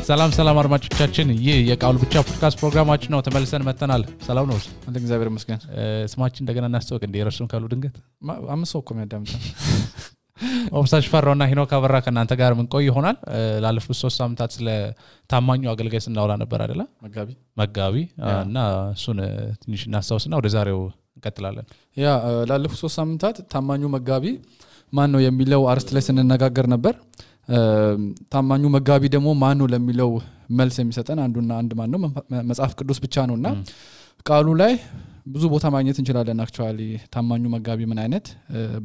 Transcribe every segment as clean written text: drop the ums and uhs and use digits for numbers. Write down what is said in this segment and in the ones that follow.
ሰላም አድማጮቻችን ይህ የቃሉ ብቻ ፖድካስት ፕሮግራማችን ነው ተመልሰን መተናል ሰላም ነው አንተ እግዚአብሔር ይመስገን ስማችን እንደገና እናስተዋወቅ እንደ የረሱን ካሉ ድንገት አምስት እኮ የሚያዳምጣ ኦብሳሽ ፈራውና ሂኖክ አበራ ከናንተ ጋር ምን ቆይ ይሆናል ላለፉት 3 ሳምንታት ስለ ታማኙ አገልጋይ ስናወራ ነበር አይደለ መጋቢ እና እሱን ትንሽ እናስተዋውስና ወደ ዛሬው እንቀጥላለን ያ ላለፉት 3 ሳምንታት ታማኙ መጋቢ ማን ነው የሚለው አርስት ላይ ስንነጋገር ነበር ታማኙ መጋቢ ደግሞ ማን ነው ለሚለው መልስ የሚሰጠን አንዱና አንድ ማን ነው መጽሐፍ ቅዱስ ብቻ ነውና ቃሉ ላይ ብዙ ቦታ ማግኘት እንችላለን አክቹአሊ ታማኙ መጋቢ ምን አይነት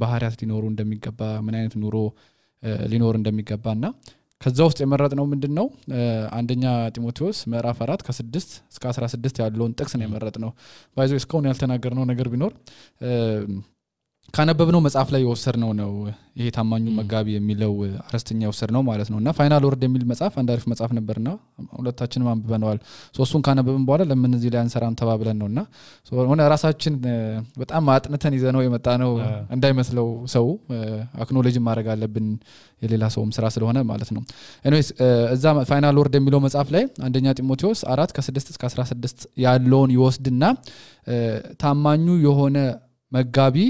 ባህሪያት ሊኖሩ እንደሚገባ ምን አይነት ኑሮ ሊኖር እንደሚገባና ከዛ ውስጥ የመረጥነው ምንድነው አንደኛ ጢሞቴዎስ ምዕራፍ 4 ከ6 እስከ 16 ያለውን ጥቅስ ነው የመረጥነው ባይዘው እስካሁን ያልተናገርነው ነገር ቢኖር ካነበብነው መጽሐፍ ላይ የወሰድነው ነው ይሄ ታማኙ መጋቢ የሚለው አርስተኛ የወሰድነው ማለት ነውና ፋይናል ወርድ የሚል መጽሐፍ አንዳሪፍ መጽሐፍ ነበርና ሁለታችንም አንብበነዋል ሶስቱን ካነበብን በኋላ ለምን እዚህ ላይ አንሰራም ተባብለን ነውና ሆነ ራሳችን በጣም አጥንተን ይዘነው የመጣነው እንዳይመስለው ሰው አክኖሎጂ ማድረግ አለብን የሌላ ሰውም ስራ ስለሆነ ማለት ነው ኤኒዌይስ እዛ ፋይናል ወርድ የሚለው መጽሐፍ ላይ አንደኛ ጢሞቴዎስ 4 ከ6 እስከ 16 ያለውን ይወስድና ታማኙ የሆነ መጋቢ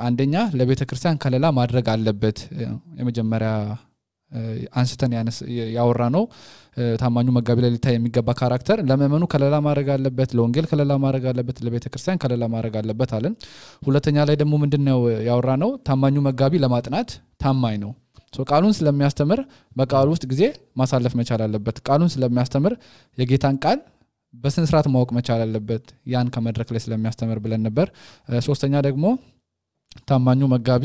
አንደኛ ለቤተ ክርስቲያን ከለላ ማድረግ አለበት የመጀመሪያ አንስተን ያወራነው ታማኙ መጋቢ ላይ ሊታይ የሚገባ ካራክተር ለመመኑ ከለላ ማድረግ አለበት ለወንጌል ከለላ ማድረግ አለበት ለቤተ ክርስቲያን ከለላ ማድረግ አለበት አለን ሁለተኛ ላይ ደግሞ ምንድነው ያወራነው ታማኙ መጋቢ ለማጥናት ታማኝ ነው ቃሉን ስለሚያስተምር በቃሉ ውስጥ ጊዜ ማሳለፍ መቻል አለበት ቃሉን ስለሚያስተምር የጌታን ቃል በስነ ስርዓት ማወቅ መቻል አለበት ያን ከመድረክ ላይ ስለሚያስተምር ብለን ነበር ሶስተኛ ደግሞ ታማኙ መጋቢ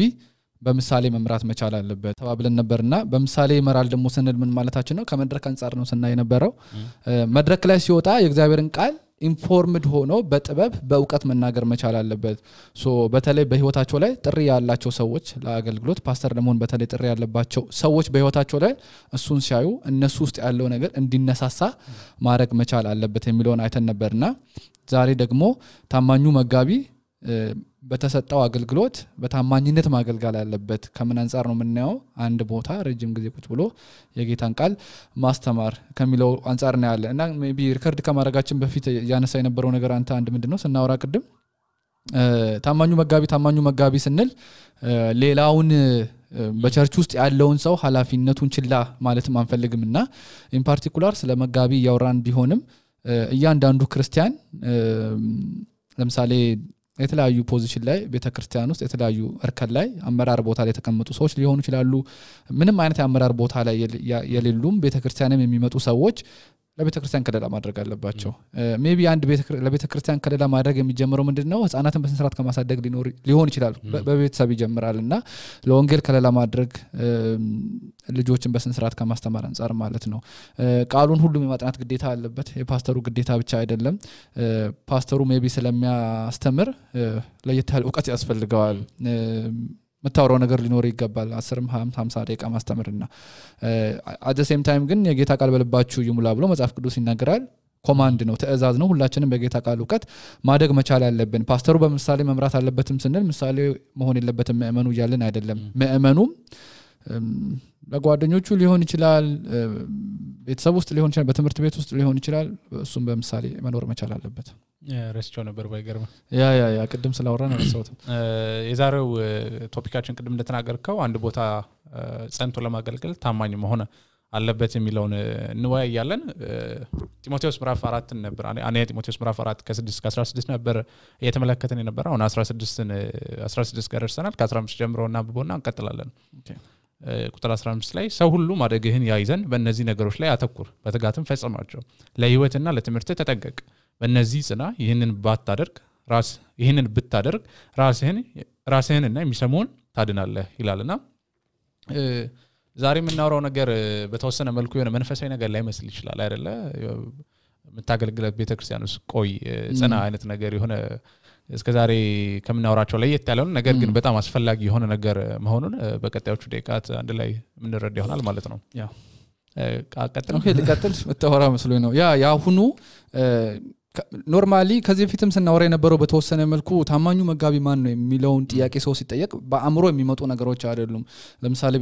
በምሳሌ መምራት መቻል አለበት ተባብለን ነበርና በምሳሌ ይመራል ደግሞ ስንል ምን ማለታችን ነው ከመድረክ አንፃር ነው ስናይ ነበረው መድረክ ላይ ሲወጣ የእግዚአብሔርን ቃል ኢንፎርምድ ሆኖ በጥበብ በእውቀት መናገር መቻል አለበት በተለይ በህይወታቸው ላይ ጥሪ ያላቸው ሰዎች ለአገልግሎት ፓስተር ለመሆን በተለይ ጥሪ ያለባቸው ሰዎች በህይወታቸው ላይ እሱን ሲያዩ እነሱ ውስጥ ያለው ነገር እንዲነሳሳ ማድረግ መቻል አለበት የሚለውን አይተን ነበርና ዛሬ ደግሞ ታማኙ መጋቢ በተሰጠው አገልግሎት በታማኝነት ማገልገል አለበት ከምን አንፃር ነው የምናየው አንድ ቦታ ረጅም ጊዜ ቁጭ ብሎ የጌታን ቃል ማስተማር ከሚለው አንፃር ነው ያለ እና ሜቢ ሪከርድ ከማድረጋችን በፊት ያነሳ የነበረው ነገር አንተ ምንድነው ስናወራ ቅድም ታማኙ መጋቢ ስንል ሌላውን በቸርች ውስጥ ያለውን ሰው ኃላፊነቱን ችላ ማለት ማንፈልግምና ኢን ፓርቲኩላር ስለ መጋቢ ያወራን ቢሆንም እያንዳንዱ ክርስቲያን ለምሳሌ የተለያዩ ፖዚሽን ላይ ቤተክርስቲያን ውስጥ የተለያዩ እርከን ላይ አመራር ቦታ ላይ ተቀመጡ ሰዎች ሊሆኑ ይችላሉ ምንም አይነት አመራር ቦታ ላይ የሌሉም ቤተክርስቲያንም የሚመጡ ሰዎች ለቤተክርስቲያን ከለላ ማድረግ አለባቸው ሜቢ አንድ ለቤተክርስቲያን ከለላ ማድረግ የሚጀምረው ምንድነው ህፃናትን በስንስራት ከማሳደግ ሊሆን ይችላል በቤተሰብ ይጀምራልና ለወንጌል ከለላ ማድረግ ልጆችን በስንስራት ከማስተማር አንፃር ማለት ነው ቃሉን ሁሉም የማጥናት ግዴታ አለበት የፓስተሩ ግዴታ ብቻ አይደለም ፓስተሩ ሜቢ ስለሚያስተምር ለየት ያለ ዕውቀት ያስፈልገዋል መታወራው ነገር ሊኖር ይገባል 10 50 ደቂቃ ማስተምርና at the same time ግን የጌታ ቃል በልባችሁ ይሙላ ብሎ መጽሐፍ ቅዱስ ይናገራል ኮማንድ ነው ተእዛዝ ነው ሁላችንም በጌታ ቃል ዕውቀት ማደግ መቻል ያለብን ፓስተሩ በምሳሌ መምራት አለበትም ስንል ምሳሌ መሆን የለበትም ምእመኑ ይያልን አይደለም ምእመኑም ለጓደኞቹ ሊሆን ይችላል ቤተሰብ ውስጥ ሊሆን ይችላል በትምህርት ቤት ውስጥ ሊሆን ይችላል እሱም በምሳሌ መኖር መቻል አለበት ረስቸው ነበር ባይገርም ያ ቅድም ስላወራን አነሳውት የዛሬው ቶፒካችን ቅድም እንደተናገርከው አንድ ቦታ ጸንቶ ለማገልገል ታማኝ መሆን አለበት የሚለውን እንወያያለን ጢሞቴዎስ ምዕራፍ 4 ነበር አኔ ጢሞቴዎስ ምዕራፍ 4 ከ6 እስከ 16 ነበር እየተመለከተን የነበረው አሁን 16 ጋር ደርሰናል ከ15 ጀምሮና አንብቦና እንቀጥላለን ቁጥር 15 ላይ ሰው ሁሉ ማደግህን ያይዘን በእነዚህ ነገሮች ላይ አተኩር በትጋትም ፈጽማቸው ለህይወትና ለትምህርት ተጠንቀቅ በእነዚህ ጽና ይህንን ብታደርግ ራስህንና የሚሰሙን ታድናለህ ይላልና ዛሬ የምናወራው ነገር በተወሰነ መልኩ የሆነ መንፈሳዊ ነገር ላይ መስል ይችላል አይደለ የምታገልግለት ቤተክርስቲያን ውስጥ ቆይ ጽና አይነት ነገር የሆነ እስከዛሬ ከምናወራቸው ላይ የት ያለው ነገር ግን በጣም አስፈላጊ የሆነ ነገር መሆኑን በቀጣዮቹ ደቂቃት አንድ ላይ ምንረዳ ይሆናል ማለት ነው ያ ቀጥል መተወራ መስሎኝ ነው ያ ሁኑ ኖርማሊ ከዚህ በፊትም ስናወራ የነበረው በተወሰነ መልኩ ታማኙ መጋቢ ማን ነው የሚለውን ጥያቄ ሰው ሲጠየቅ በአእምሮ የሚመጡ ነገሮች አይደሉም ለምሳሌ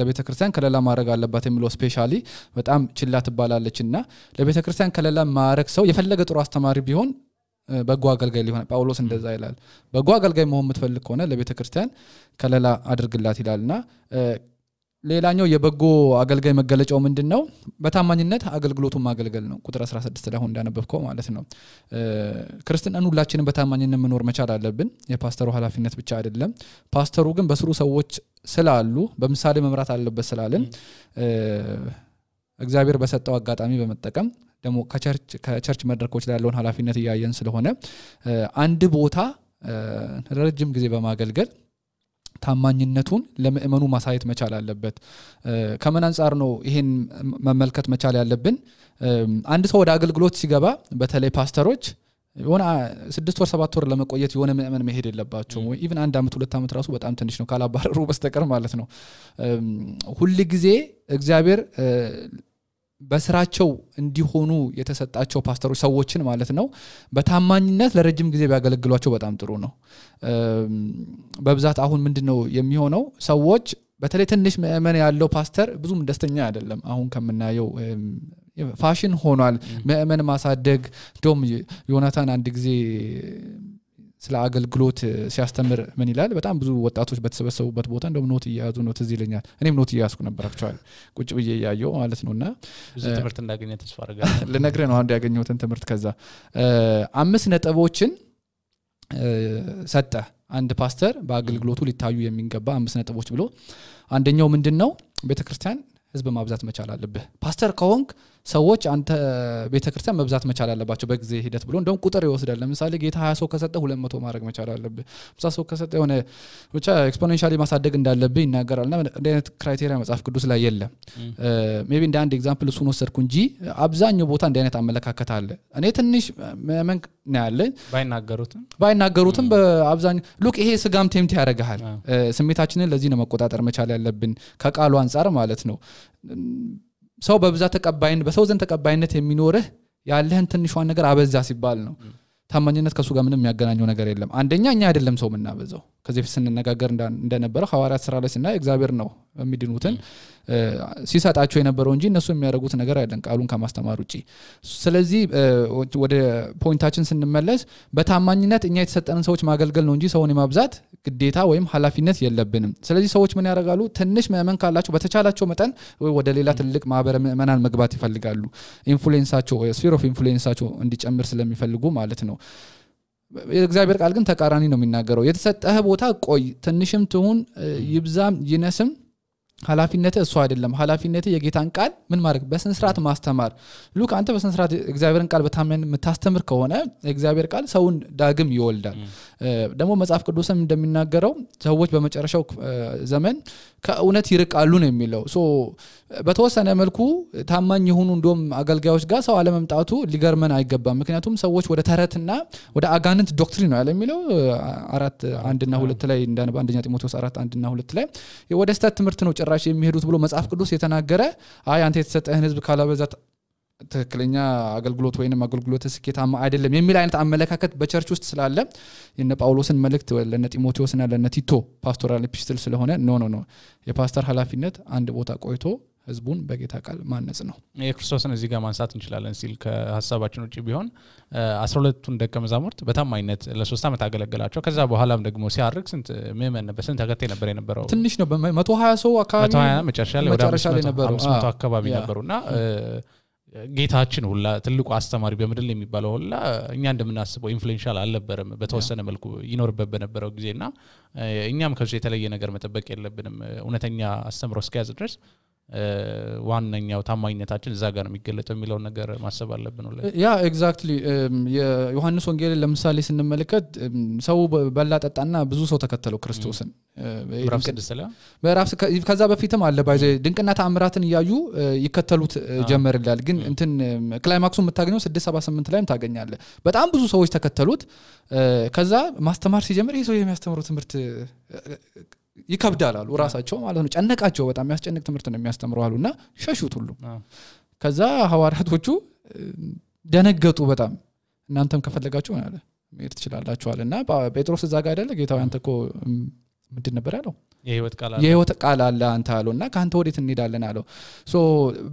ለቤተክርስቲያን ከለላ ማድረግ አለባት የሚለው ስፔሻሊ በጣም ችላ ትባላለችና ለቤተክርስቲያን ከለላ ማድረግ ሰው የፈለገ ጥሩ አስተማሪ ቢሆን በጎ አገልጋይ ሊሆን ጳውሎስ እንደዛ ይላል በጎ አገልጋይ መሆን የምትፈልግ ከሆነ ለቤተክርስቲያን ከለላ አድርግላት ይላልና ሌላኛው የበጎ አገልጋይ መገለጫው ምንድነው በታማኝነት አገልግሎቱን ማገልገል ነው ቁጥር 16 ላይ እንዳነበብከው ማለት ነው ክርስቲያኑን ሁላችንም በታማኝነት መኖር መቻል አለብን የፓስተሩ ኃላፊነት ብቻ አይደለም ፓስተሩ ግን በስሩ ሰዎች ስላሉ በምሳሌ መምራት አለበት ስላልን እግዚአብሔር በሰጠው አጋጣሚ በመጠቀም ደሞ ከቸርች መድረኮች ላይ ያለውን ኃላፊነት ያያየን ስለሆነ አንድ ቦታ ረጅም ጊዜ በማገልገል ታማኝነቱን ለምእመኑ ማሳየት መቻል አለበት ከመን አንፃር ነው ይሄን መመልከት መቻል ያለብን አንድ ሰው ወደ አገልግሎት ሲገባ በተለይ ፓስተሮች የሆነ 6 ወር 7 ወር ለመቆየት የሆነ ምእመን መሄድ የለባቸው ኢቭን 1 አመት 2 አመት ራሱ በጣም ትንሽ ነው ካላባረሩ በስተቀር ማለት ነው ሁሉ ጊዜ እግዚአብሔር በስራቸው እንዲሆኑ የተሰጣቸው ፓስተሮች ሰዎችን ማለት ነው በታማኝነት ለረጅም ጊዜ ቢያገለግሏቸው በጣም ጥሩ ነው በብዛት አሁን ምንድነው የሚሆነው ሰዎች በተለይ ትንሽ ምእመን ያለው ፓስተር ብዙም ደስተኛ አይደለም አሁን ከምናየው ፋሽን ሆኗል ምእመን ማሳደግ ዶም ዮናታን አንድ ጊዜ ስለ አገልግሎት ሲያስተምር ምን ይላል በጣም ብዙ ወጣቶች በተሰበሰቡበት ቦታ እንደም ኖት ይያዙ ነው ትዝ ይለኛል እኔም ኖት ይያዝኩ ነበር አክቹአሊ ቁጭ ብዬ ያያየው ማለት ነውና ብዙ ትምህርት እንዳገኘ ተስፋ አደርጋለሁ ለነገር ነው አንድ ያገኘሁትን ትምህርት ከዛ 5 ነጥቦችን ሰጠ አንድ ፓስተር በአገልግሎቱ ሊታዩ የሚገባ 5 ነጥቦች ብሎ አንደኛው ምንድነው ቤተክርስቲያን ህዝብ ማብዛት መቻል አለበት ፓስተር ከሆንክ ሰዎች አንተ ቤተክርስቲያን መብዛት መቻል አለባቸው በጊዜ ሂደት ብሎ እንደውም ቁጥር ይወስዳል ለምሳሌ ጌታ 20 ሰው ከሰጠ 200 ማድረግ መቻል አለበት 50 ሰው ከሰጠ የሆነ ብቻ ኤክስፖኔንሻሊ ማሳደግ እንዳለበት ይናገራልና እንደ አይነት ክራይቴሪያ መጽሐፍ ቅዱስ ላይ የለም ሜቢ እንደ አንድ ኤግዛምፕል እሱን ወሰድኩ እንጂ አብዛኛው ቦታ እንደ አይነት አመለካከት አለ እኔ ትንሽ መመን ነው ያለ ባይናገሩትም በአብዛኛው ሉክ ይሄ ስጋም ቴምት ያደርጋል ስሜታችንን ለዚህ ነው መቆጣጠር መቻል ያለብን ከቃሉ አንፃር ማለት ነው ሰው በብዛት ተቀባይነት በሰው ዘንድ ተቀባይነት የሚኖርህ ያለህን ትንሿን ነገር አበዛ ሲባል ነው ታማኝነት ከሱ ጋር ምንም የሚያገናኘው ነገር የለም አንደኛ እኛ አይደለም ሰው ምናበዛው ከዚህ ፍስን ነጋገር እንደነበረው ሐዋርያት ሥራ ላይ እና እግዚአብሔር ነው የሚድኑትን ሲሰጣቸው የነበረው እንጂ እነሱ የሚያደርጉት ነገር አይደለም ቃሉን ከማስተማር ውጪ ስለዚህ ወደ ፖይንታችን ስንመለስ በታማኝነት እኛ የተሰጠንን ሰዎች ማገልገል ነው እንጂ ሰውን የማብዛት ግዴታ ወይም ኃላፊነት የለብንም ስለዚህ ሰዎች ምን ያደርጋሉ ትንሽ ምእመን ካላቸው በተቻላቸው መጠን ወደ ሌላ ትልቅ ማህበረ ምእመናን መግባት ይፈልጋሉ ኢንፍሉዌንሳቸው ስፊር ኦፍ ኢንፍሉዌንሳቸው እንዲጨምር ስለሚፈልጉ ማለት ነው የእግዚአብሔር ቃል ግን ተቃራኒ ነው የሚናገረው የተሰጠህ ቦታ ቆይ ትንሽም ትሁን ይብዛም ይነስም ኃላፊነትህ እሱ አይደለም ኃላፊነትህ የጌታን ቃል ምን ማድረግ በስንስራት ማስተማር ሉክ አንተ በስንስራት እግዚአብሔርን ቃል በታመን የምታስተምር ከሆነ እግዚአብሔር ቃል ሰውን ዳግም ይወልዳል ደግሞ መጽሐፍ ቅዱስም እንደሚናገረው ሰዎች በመጨረሻው ዘመን ከእውነት ይርቃሉ ነው የሚለው ሶ በተወሰነ መልኩ ታማኝ የሆኑ እንደም አገልጋዮች ጋር ሰው አለመምጣቱ ሊገርመን አይገባም ምክንያቱም ሰዎች ወደ ተረትና ወደ አጋንንት ዶክትሪን ነው ያለሚለው 4:1 እና 2 ላይ እንዳነባ አንደኛ ጢሞቴዎስ 4:1 እና 2 ላይ ወደ ስተት ትምህርት ነው ጭራሽ የሚሄዱት ብሎ መጽሐፍ ቅዱስ የተናገረ አይ አንተ የተሰጠህን ህዝብ ካላበዛት ትክክለኛ አገልግሎት ወይንም አገልግሎት ስኬታማ አይደለም የሚል አይነት አመለካከት በቸርች ውስጥ ስላለ የነ ጳውሎስን መልእክት ለነ ጢሞቴዎስና ለነ ቲቶ ፓስቶራል ኤፒስቶል ስለሆነ ኖ የፓስተር ኃላፊነት አንድ ቦታ ቆይቶ ህዝቡን በጌታ ቃል ማነጽ ነው የክርስቶስን እዚህ ጋር ማንሳት እንችላለን ሲል ከሐሳባችን ውጪ ቢሆን 12ቱን ደቀ መዛሙርት በታማኝነት ለ3 አመት አገለገላቸው ከዛ በኋላም ደግሞ ሲያርግ ስንት ምእመን በስንት ተከታይ ነበር የነበረው ትንሽ ነው በ120 ሰው አካባቢ 120 መጨረሻ ላይ ወደ 500 አካባቢ ነበሩና ጌታችን ሁላ ትልቁ አስተማሪ በመድል የሚባለው ሁላ እኛ እንደምናስበው ኢንፍሉዌንሻል አልነበረም በተወሰነ መልኩ ይኖርበት በነበረው ጊዜና እኛም ከዚህ የተለየ ነገር መጠበቅ የለብንም እውነተኛ አስተምሮ እስከያዝ ድረስ ዋንኛው ታማኝነታችን እዛ ጋር ነው የሚገለጠው የሚለው ነገር ማሰብ አለብን ነው ያ ኤግዛክትሊ የዮሐንስ ወንጌል ለምሳሌ ስንመለከት ሰው በላጠጣና ብዙ ሰው ተከተለው ክርስቶስን ከዛ በፊትም አለ ባይዘ ድንቅና ተአምራትን ያዩ ይከተሉት ጀመርላል ግን እንትን ክላይማክሱ የምታገኘው 678 ላይም ታገኛለህ በጣም ብዙ ሰዎች ተከተሉት ከዛ ማስተማር ሲጀምር ይሄ ሰው የሚያስተምረው ትምህርት ይከብዳል አሉ ራሳቸው ማለት ነው ጨነቃቸው በጣም ያስጨንቅ ትምህርት ነው የሚያስተምረው አሉና ሸሹት ሁሉ ከዛ ሐዋርያቶቹ ደነገጡ በጣም እናንተም ከፈለጋችሁ ማለት መሄድ ትችላላችሁ አለና ጴጥሮስ እዛ ጋር አይደለ ጌታው አንተኮ ምንድን ነበር ያለው የህይወት ቃል አለ አንተ አለውና ካንተ ወዴት እንሄዳለን አለው ሶ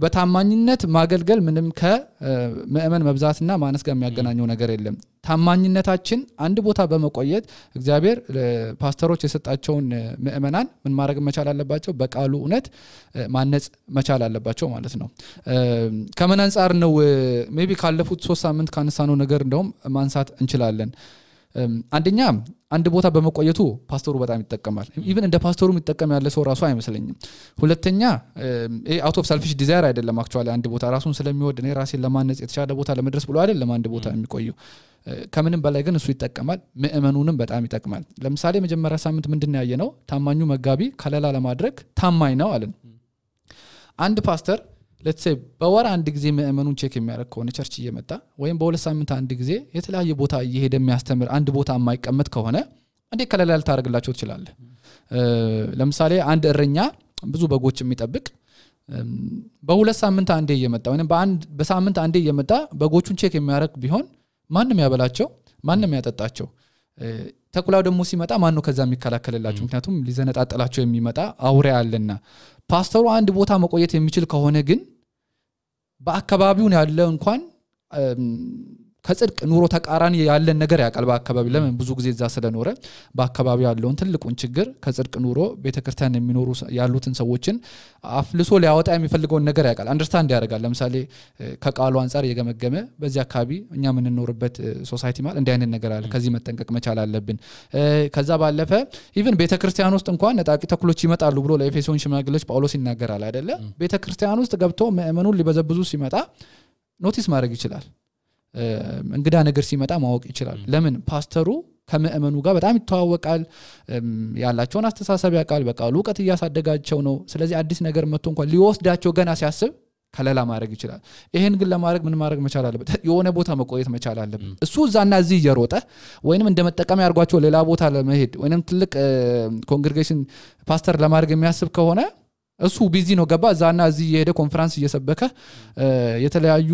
በታማኝነት ማገልገል ምንም ከመእመን መብዛትና ማነስ ጋር የሚያገናኘው ነገር የለም ታማኝነታችን አንድ ቦታ በመቆየት እግዚአብሔር ፓስተሮች የሰጣቸውን መእመናን ምን ማድረግ መቻል አለባቸው በቃሉ እውነት ማነጽ መቻል አለባቸው ማለት ነው ከምን አንፃር ነው ሜቢ ካለፉት 3 ሳምንት ካነሳነው ነገር እንደውም ማንሳት እንችላለን አንደኛ አንድ ቦታ በመቆየቱ ፓስተሩ በጣም ይጠቀማል ኢቭን እንደ ፓስተሩ የሚጠቀም ያለ ሰው ራሱ አይመስለኝም ሁለተኛ አውት ኦፍ ሰልፊሽ ዲዛይር አይደለም አክቹአሊ አንድ ቦታ ራሱን ስለሚወድ እኔ ራሴን ለማነጽ የተሻለ ቦታ ለመድረስ ብሎ አይደለም አንድ ቦታ የሚቆየው ከምንም በላይ ግን እሱ ይጠቀማል መእመኑንም በጣም ይጠቅማል ለምሳሌ መጀመሪያ ሳምንት ምንድነው ያየነው ታማኙ መጋቢ ከለላ ለማድረግ ታማኝ ነው አለን አንድ ፓስተር let's say በወር አንድ ጊዜ መእመኑን ቼክ የሚያደርግ ከሆነ ቸርች እየመጣ ወይም በሁለት ሳምንት አንድ ጊዜ የተለያየ ቦታ እየሄደ የሚያስተምር አንድ ቦታ የማይቀመጥ ከሆነ እንዴ ከለላ ልታደርግላቸው ትችላለ ለምሳሌ አንድ እረኛ ብዙ በጎች የሚጠብቅ በሁለት ሳምንት አንዴ እየመጣ ወይንም በሳምንት አንዴ እየመጣ በጎቹን ቼክ የሚያደርግ ቢሆን ማንንም ያበላቸው ማንንም ያጠጣቸው ተኩላው ደግሞ ሲመጣ ማን ነው ከዛ የሚከላከልላቸው ምክንያቱም ሊዘነጣጣላቸው የሚመጣ አውሬ አለና ፓስተሩ አንድ ቦታ መቆየት የሚችል ከሆነ ግን በአካባቢው ያለ እንኳን ከጽድቅ ኑሮ ተቃራኒ ያለን ነገር ያቃል በአካባቢ ለምን ብዙ ጊዜ እዛ ስለኖረ በአካባቢው ያለውን ትልቁን ችግር ከጽድቅ ኑሮ ቤተክርስቲያን የሚኖሩ ያሉትን ሰዎችን አፍልሶ ሊያወጣ የሚፈልገውን ነገር ያቃል አንደርስታንድ ያደርጋል ለምሳሌ ከቃሉ አንፃር የገመገመ በዚህ አካባቢ እኛ ምን እንኖርበት ሶሳይቲ ማለት እንዲህ አይነት ነገር አለ ከዚህ መጠንቀቅ መቻል አለብን ከዛ ባለፈ ኢቭን ቤተክርስቲያን ውስጥ እንኳን ነጣቂ ተኩሎች ይመጣሉ ብሎ ለኤፌሶን ሽማግሌዎች ጳውሎስ ይናገራል አይደለ ቤተክርስቲያን ውስጥ ገብቶ መእመኑን ሊበዘብዙ ሲመጣ ኖቲስ ማድረግ ይችላል እንግዳ ነገር ሲመጣ ማወቅ ይችላል ለምን ፓስተሩ ከመእመኑ ጋር በጣም ይተዋወቃል ያላቸውን አስተሳሰብ ያቃል በቃሉ ዕውቀት ያሳደጋቸው ነው ስለዚህ አዲስ ነገር መጥቶ እንኳን ሊወስዳቸው ገና ሲያስብ ከለላ ማድረግ ይችላል ይሄን ግን ለማድረግ ምን ማድረግ መቻል አለበት የሆነ ቦታ መቆየት መቻል አለበት እሱ እዛና እዚህ እየሮጠ ወይንም እንደመጠቀም ያርጓቸው ሌላ ቦታ ለመሄድ ወይንም ትልቅ ኮንግሪጌሽን ፓስተር ለማድረግ የሚያስብ ከሆነ እሱ ቢዚ ነው ገባ እዛና እዚህ የሄደ ኮንፈረንስ እየሰበከ የተለያዩ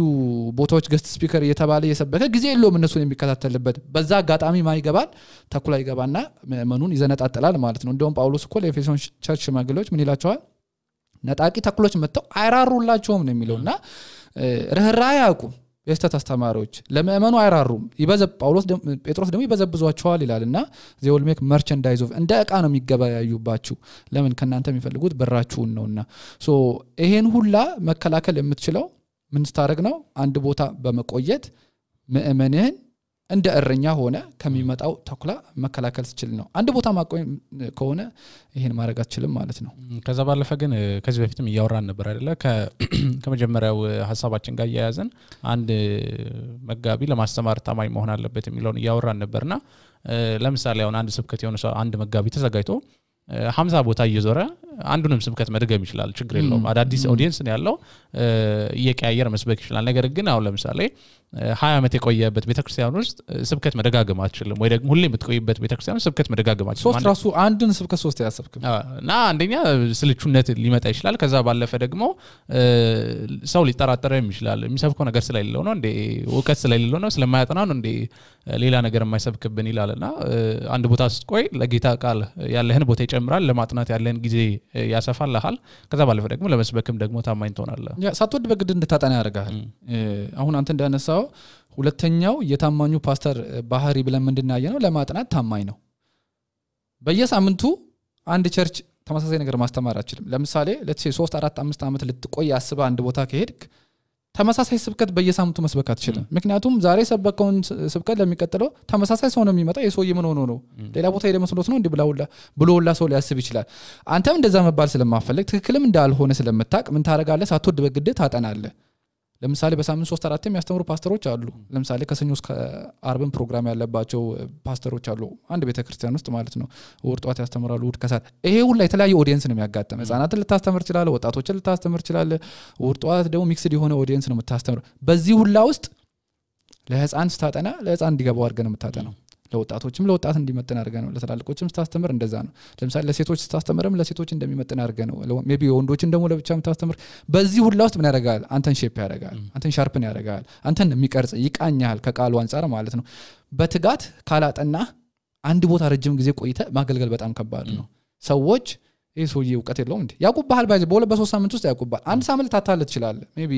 ቦታዎች ገስት ስፒከር እየተባለ እየሰበከ ጊዜ የለውም እነሱን የሚከታተልበት በዛ አጋጣሚ ማይገባል ተኩላ ይገባና መእመኑን ይዘነጣጣላል ማለት ነው እንደውም ጳውሎስ እኮ ለኤፌሶን ቸርች ሽማግሌዎች ምን ይላቸዋል ነጣቂ ተኩሎች መጥተው አይራሩላቸውም ነው የሚለውና ረህራይ ያቁም የስተት አስተማሪዎች ለመእመኑ አይራሩም ጴጥሮስ ደግሞ ይበዘብዟቸዋል ይላልና they will make merchandise of እንደ ዕቃ ነው የሚገበያዩባችሁ ለምን ከናንተ የሚፈልጉት ብራችሁን ነውና ሶ ይሄን ሁላ መከላከል የምትችለው ምን ስታረግ ነው አንድ ቦታ በመቆየት መእመንህን እንደ እረኛ ሆነ ከሚመጣው ተኩላ መከላከል ትችል ነው አንድ ቦታ ማቆይ ከሆነ ይሄን ማድረግ አትችልም ማለት ነው ከዛ ባለፈ ግን ከዚህ በፊትም ያወራን ነበር አይደለ ከመጀመሪያው ሐሳባችን ጋር ያያዘን አንድ መጋቢ ለማስተማር ታማኝ መሆን አለበት የሚለውን ያወራን ነበርና ለምሳሌ አሁን አንድ ስብከት የሆነ ሰው አንድ መጋቢ ተዘጋጅቶ 50 ቦታ እየዞረ አንዱንም ስብከት መድገም ይችላል ችግር የለውም አዳዲስ ኦዲየንስ ነው ያለው እየቀያየረ መስበክ ይችላል ነገር ግን አሁን ለምሳሌ 20 ዓመት የቆየበት ቤተክርስቲያን ውስጥ ስብከት መደጋገም አትችልም ወይ ደግሞ ሁሌ የምትቆይበት ቤተክርስቲያን ውስጥ ስብከት መደጋገም አትችልም ሶስት ራሱ አንዱን ስብከት ሶስት ያሰብክም እና አንደኛ ስልቹነት ሊመጣ ይችላል ከዛ ባለፈ ደግሞ ሰው ሊጠራጠረም ይችላል የሚሰብከው ነገር ስለሌለው ነው እንዴ ዕውቀት ስለሌለው ነው ስለማያጠና ነው እንዴ ሌላ ነገር የማይሰብክብን ይላልና አንድ ቦታ ስትቆይ ለጌታ ቃል ያለህን ቦታ ይጨምራል ለማጥናት ያለህን ጊዜ ያሰፋልሃል ከዛ ባለፈ ደግሞ ለመስበክም ደግሞ ታማኝ ትሆናለህ ያ ሳትወድ በግድ እንድታጠና ያደርጋል አሁን አንተ እንዳነሳው ሁለተኛው የታማኙ ፓስተር ባህሪ ብለን ምንድናየነው ለማጥናት ታማኝ ነው በየሳምንቱ አንድ ቸርች ተመሳሳይ ነገር ማስተማር አይችልም ለምሳሌ let's say 3 4 5 ዓመት ልትቆይ ያስባ አንድ ቦታ ከሄድክ ተመሳሳይ ስብከት በየሳምንቱ መስበክ አትችልም ምክንያቱም ዛሬ ሰበከውን ስብከት ለሚቀጥለው ተመሳሳይ ሰው ነው የሚመጣው የሰውዬ ምን ሆኖ ነው ሌላ ቦታ ሄደ መስሎት ነው እንዴ ብሎላ ሰው ሊያስብ ይችላል አንተም እንደዛ መባል ስለማፈልግ ትክክልም እንዳልሆነ ስለምታቅ ምን ታረጋለህ ሳትወድ በግድ ታጠናለህ ለምሳሌ በሳምንት 3 4 የሚያስተምሩ ፓስተሮች አሉ ለምሳሌ ከሰኞ እስከ አርብን ፕሮግራም ያለባቸው ፓስተሮች አሉ አንድ ቤተክርስቲያን ውስጥ ማለት ነው እሑድ ጧት ያስተምራሉ እሑድ ከሰዓት ይሄ ሁሉ የተለያየ ኦዲየንስ ነው የሚያጋጥመው ህፃናትን ልታስተምር ይችላል ወጣቶችን ልታስተምር ይችላል እሑድ ጧት ደግሞ ሚክስድ የሆነ ኦዲየንስ ነው የምታስተምረው በዚህ ሁሉ ውስጥ ለህፃን ስታጠና ለህፃን እንዲገባው አድርገን የምታጠናው ለወጣቶችም ለወጣት እንዲመጥን አድርገህ ነው ለተላልቆችም ስታስተምር እንደዛ ነው ለምሳሌ ለሴቶች ስታስተምርም ለሴቶች እንደሚመጥን አድርገህ ነው ሜቢ ወንዶችን ደግሞ ለብቻም ታስተምር በዚህ ሁሉ ውስጥ ምን ያደርጋል አንተን ሼፕ ያደርጋል አንተን ሻርፕን ያደርጋል አንተን የሚቀርጽ ይቃኛል ከቃሉ አንፃር ማለት ነው በትጋት ካላጠና አንድ ቦታ ረጅም ጊዜ ቆይተ ማገልገል በጣም ከባድ ነው ሰዎች ይሄ ሰውዬ ዕውቀት የለውም እንዴ ያቁባል ባይዘ በ2-3 ሳምንት ውስጥ ያቁባል አንድ ሳምንት ታታለ ይችላል ሜቢ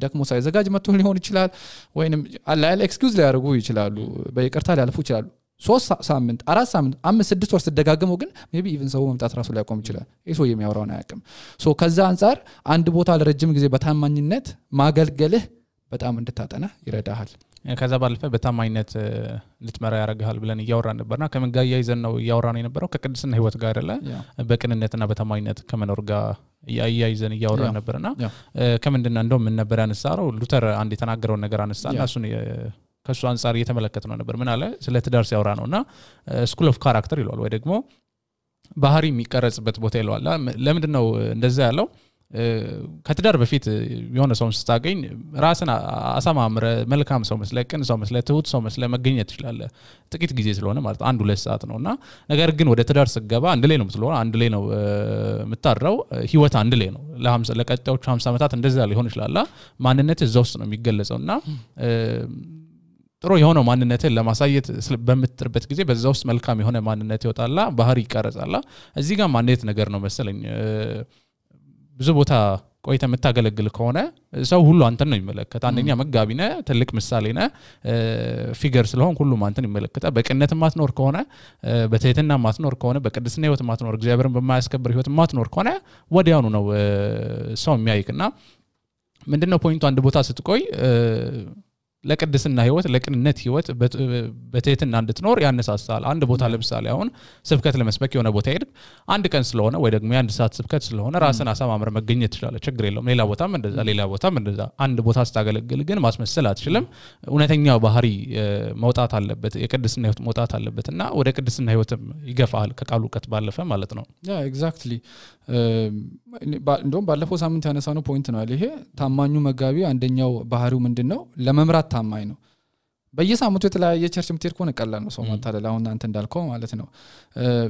ደክሞ ሳይዘጋጅ መጥቶ ሊሆን ይችላል ወይንም አላለ ኤክስኪውዝ ሊያደርጉ ይችላሉ በይቅርታ ሊያልፉ ይችላሉ 3 ሳምንት 4 ሳምንት 5-6 ወር ተደጋግመው ግን ሜቢ ኢቭን ሰው መምጣት ራሱ ሊያቆም ይችላል ይሄ ሰውዬ የሚያወራውን አያውቅም ሶ ከዛ አንፃር አንድ ቦታ ለረጅም ጊዜ በታማኝነት ማገልገልህ በጣም እንድታጠና ይረዳሃል ከዛ ባለፈ በታማኝነት ልትመራ ያረጋል ብለን እያወራን ነበርና ከምን ጋር ያይዘን ነው እያወራን የነበረው ከቅድስና ህይወት ጋር አይደለ በቅንነትና በታማኝነት ከመኖር ጋር ያይዘን እያወራን ነበርና ከምንድነው እንደው ምን ነበር ያነሳው ሉተር አንድ የተናገረው ነገር አነሳና እሱን ከሱ አንፃር እየተመለከተነው ነበር ምን አለ ስለ ትዳር ሲያወራ ነውና ስኩል ኦፍ ካራክተር ይሏል ወይ ደግሞ ባህሪ የሚቀረጽበት ቦታ ይሏል ለምንድነው እንደዛ ያለው ከትዳር በፊት የሆነ ሰው ስታገኝ ራስን አሳማምረ መልካም ሰው መስለ ቅን ሰው መስለ ትሁት ሰው መስለ መገኘት ይችላል ጥቂት ጊዜ ስለሆነ ማለት 1-2 ሰዓት ነውና ነገር ግን ወደ ትዳር ስገባ አንድ ላይ ነው ስለሆነ አንድ ላይ ነው የምታድረው ህይወት አንድ ላይ ነው ለቀጣዮቹ 50 ዓመታት እንደዛ ሊሆን ይችላል ማንነት እዛው ውስጥ ነው የሚገለጸውና ጥሩ የሆነ ማንነትን ለማሳየት በመጥርበት ጊዜ በዛው ውስጥ መልካም የሆነ ማንነት ይወጣላ ባህሪ ይቀርጻላ እዚህ ጋር ማንነት ነገር ነው መሰለኝ ብዙ ቦታ ቆይተ መታገለግል ከሆነ ሰው ሁሉ አንተን ነው የሚመለከት አንደኛ መጋቢ ነህ ትልቅ ምሳሌ ነህ ፊገር ስለሆን ሁሉ አንተን ይመለከታል በቅንነት ማትኖር ከሆነ በትህትና ማትኖር ከሆነ በቅድስና ህይወት ማትኖር እግዚአብሔርን በማያስከብር ህይወት ማትኖር ከሆነ ወዲያውኑ ነው ሰው የሚያይክና ምንድነው ፖይንቱ አንድ ቦታ ስትቆይ ለቅድስና ህይወት ለቅንነት ህይወት በትህትና እንድትኖር ያነሳሳል አንድ ቦታ ለምሳሌ አሁን ስብከት ለመስበክ የሆነ ቦታ ሄድ አንድ ቀን ስለሆነ ወይ ደግሞ የአንድ ሰዓት ስብከት ስለሆነ ራስን አሳማምረ መገኘት ይችላል ችግር የለውም ሌላ ቦታም እንደዛ አንድ ቦታ ስታገለግል ግን ማስመሰል አትችልም እውነተኛው ባህሪ መውጣት አለበት የቅድስና ህይወት መውጣት አለበትና ወደ ቅድስና ህይወትም ይገፋል ከቃሉ ዕውቀት ባለፈ ማለት ነው ያ ኤግዛክትሊ እንደውም ባለፈው ሳምንት ያነሳነው ፖይንት ነው ይሄ ታማኙ መጋቢ አንደኛው ባህሪው ምንድነው ለመምራት ታማኝ ነው በየሳምንቱ የተለያየ ቸርች ምትሄድ ከሆነ ቀላል ነው ሰው ማታለል አሁን አንተ እንዳልከው ማለት ነው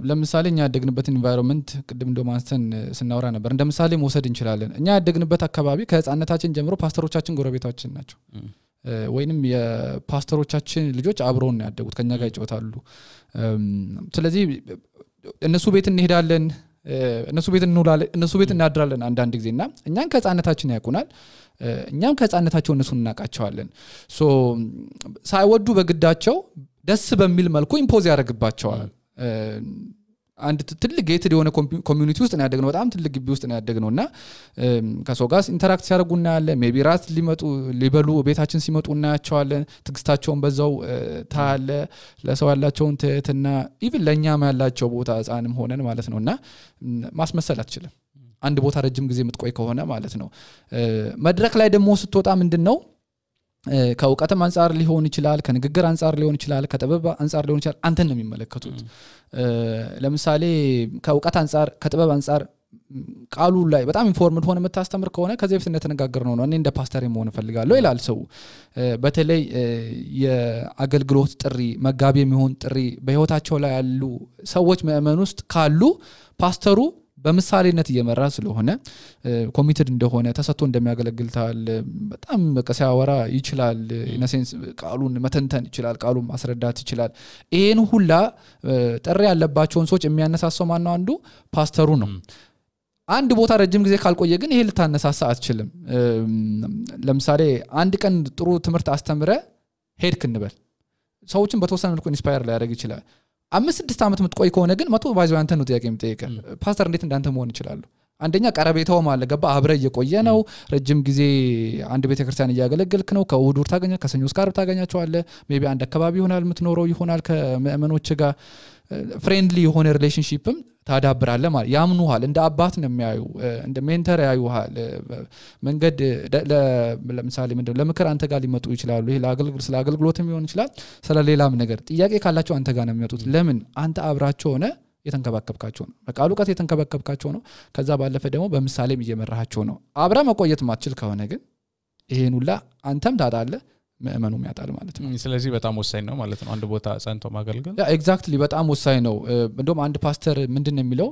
ለምሳሌ እኛ ያደግንበት ኢንቫይሮንመንት ቅድም እንደማንስተን ስናወራ ነበር እንደምሳሌ መውሰድ እንችላለን እኛ ያደግንበት አካባቢ ከህፃንነታችን ጀምሮ ፓስተሮቻችን ጎረቤታችን ናቸው ወይንም የፓስተሮቻችን ልጆች አብረውን ያደጉት ከኛ ጋር ይጫወታሉ ስለዚህ እነሱ ቤት እንሄዳለን እነሱ ቤት እንውላለን እነሱ ቤት እናድራለን አንዳንድ ጊዜና እኛን ከህፃንነታችን ያቁናል እኛም ከህፃንነታቸው እነሱን እናቃቸዋለን ሶ ሳይወዱ በግዳቸው ደስ በሚል መልኩ ኢምፖዝ ያደርግባቸዋል አንድ ትልቅ ጌትድ የሆነ ኮሚዩኒቲ ውስጥ ነው ያደግነው በጣም ትልቅ ግቢ ውስጥ ነው ያደግነውና ከሰው ጋር ኢንተራክት ሲያደርጉና ያለ ሜቢ ራት ሊበሉ ቤታችን ሲመጡ እናያቸዋለን ትግስታቸውን በዛው ታለ ለሰው ያላቸውን ትህትና ኢቭን ለኛም ያላቸው ቦታ ህፃንም ሆነን ማለት ነውና ማስመሰል አትችልም አንድ ቦታ ረጅም ጊዜ የምትቆይ ከሆነ ማለት ነው መድረክ ላይ ደግሞ ስትወጣ ምንድነው ከዕውቀትም አንፃር ሊሆን ይችላል ከንግግር አንፃር ሊሆን ይችላል ከጥበብ አንፃር ሊሆን ይችላል አንተን ነው የሚመለከቱት ለምሳሌ ከዕውቀት አንፃር ከጥበብ አንፃር ቃሉ ላይ በጣም ኢንፎርምድ ሆነ መታስተምር ከሆነ ከዚህ በፊት እንደተነጋገርነው ነው እኔ እንደ ፓስተር መሆን ፈልጋለሁ ይላል ሰው በተለይ የአገልግሎት ጥሪ መጋቢ የሚሆን ጥሪ በህይወታቸው ላይ ያሉ ሰዎች ምእመን ውስጥ ካሉ ፓስተሩ በምሳሌነት እየመራ ስለሆነ ኮሚትድ እንደሆነ ተሰጥቶ እንደሚያገለግል ታል በጣም በቀሳያወራ ይችላል ኢነሴንስ ቃሉን መተንተን ይችላል ቃሉን ማስረዳት ይችላል ይሄን ሁላ ጥሪ ያለባቸውን ሰዎች የሚያነሳሳው ማን ነው አንዱ ፓስተሩ ነው አንድ ቦታ ረጅም ጊዜ ካልቆየ ግን ይሄ ልታነሳሳ አትችልም ለምሳሌ አንድ ቀን ጥሩ ትምህርት አስተምረ ሄድክ እንበል ሰዎችን በተወሰነ መልኩ ኢንስፓየር ሊያደርግ ይችላል 5-6 ዓመት ምትቆይ ከሆነ ግን መቶ ባይዘው አንተ ነው ጥያቄ የምትጠይቀ ፓስተር እንዴት እንዳንተ መሆን ይችላል አንደኛ ቀረቤታው ማለት ገባ አብረ እየቆየ ነው ረጅም ጊዜ አንድ ቤተክርስቲያን እያገለገልክ ነው ከእሁድ ታገኛ ከሰኞ እስከ ዓርብ ታገኛቸዋለ ሜቢ አንድ አካባቢ ይሆናል ምትኖረው ይሆናል ከመእመኖች ጋር ፍሬንድሊ የሆነ ሪሌሽንሺፕም ታዳብራለ ማለት ያምኑሃል እንደ አባት ነው የሚያዩ እንደ ሜንተር ያዩሃል መንገድ ለምሳሌ ምንድነው ለምክር አንተ ጋር ሊመጡ ይችላሉ ይሄ ለአገልግሎትም ይሆን ይችላል ስለሌላም ነገር ጥያቄ ካላቸው አንተ ጋር ነው የሚመጡት ለምን አንተ አብራቸው ሆነ የተንከባከብካቸው ነው በቃሉ ቃት የተንከባከብካቸው ነው ከዛ ባለፈ ደግሞ በምሳሌም እየመራሃቸው ነው አብራ መቆየት ማትችል ከሆነ ግን ይሄን ሁላ አንተም ታጣለ ምእመኑም ያጣል ማለት ነው ስለዚህ በጣም ወሳኝ ነው ማለት ነው አንድ ቦታ ጸንቶ ማገልገል ያ ኤግዛክትሊ በጣም ወሳኝ ነው እንደውም አንድ ፓስተር ምንድነው የሚለው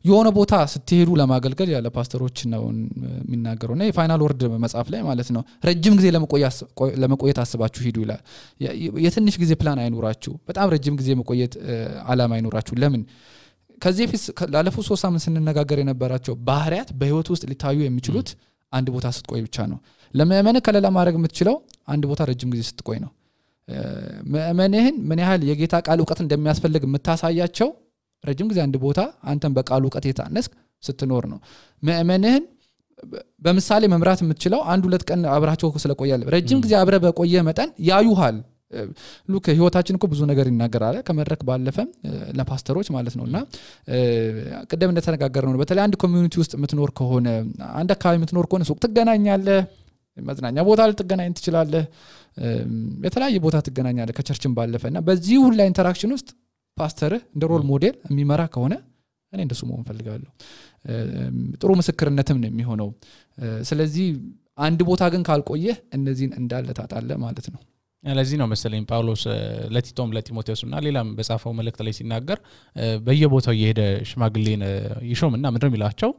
የሆነ ቦታ ስትሄዱ ለማገልገል ያለ ፓስተሮች ነው የሚናገሩና የፋይናል ወርድ መጽሐፍ ላይ ማለት ነው ረጅም ጊዜ ለመቆየት አስባችሁ ሂዱ ይላል የትንሽ ጊዜ ፕላን አይኖራችሁ በጣም ረጅም ጊዜ መቆየት አላማ አይኖራችሁ ለምን ከዚህ ፊት ላለፉት 3 ሳምንት ስንነጋገር የነበራቸው ባህሪያት በህይወት ውስጥ ሊታዩ የሚችሉት አንድ ቦታ ስትቆይ ብቻ ነው ለምእመን ከለላ ማድረግ የምትችለው አንድ ቦታ ረጅም ጊዜ ስትቆይ ነው ምእመንህን ምን ያህል የጌታ ቃል ዕውቀት እንደሚያስፈልግ የምታሳያቸው ረጅም ጊዜ አንድ ቦታ አንተን በቃሉ ዕውቀት የታነስክ ስትኖር ነው ምእመንህን በምሳሌ መምራት የምትችለው 1-2 ቀን አብራቸው ስለቆያል ረጅም ጊዜ አብረ በቆየ መጠን ያዩሃል ሉክ ህይወታችን እኮ ብዙ ነገር ይናገራል ከመድረክ ባለፈ ለፓስተሮች ማለት ነውና ቀደም እንደተነጋገርነው ነው በተለይ አንድ ኮሚዩኒቲ ውስጥ የምትኖር ከሆነ አንድ አካባቢ የምትኖር ከሆነ ሱቅ ትገናኛለህ መዝናኛ ቦታ ልትገናኝ ትችላለህ የተለያየ ቦታ ትገናኛለህ ከቸርችን ባለፈና በዚህ ሁሉ ኢንተራክሽን ውስጥ ፓስተር እንደ ሮል ሞዴል የሚመራ ከሆነ እኔ እንደሱ መሆን ፈልጋለሁ ጥሩ ምስክርነትም ነው የሚሆነው ስለዚህ አንድ ቦታ ግን ካልቆየ እነዚህን እንዳለ ታጣለ ማለት ነው ለዚህ ነው መሰለኝ ጳውሎስ ለቲቶም ለቲሞቴዎስና ሌላም በጻፈው መልእክት ላይ ሲናገር በየቦታው እየሄደ ሽማግሌን ይሾምና ምንድነው የሚላቸው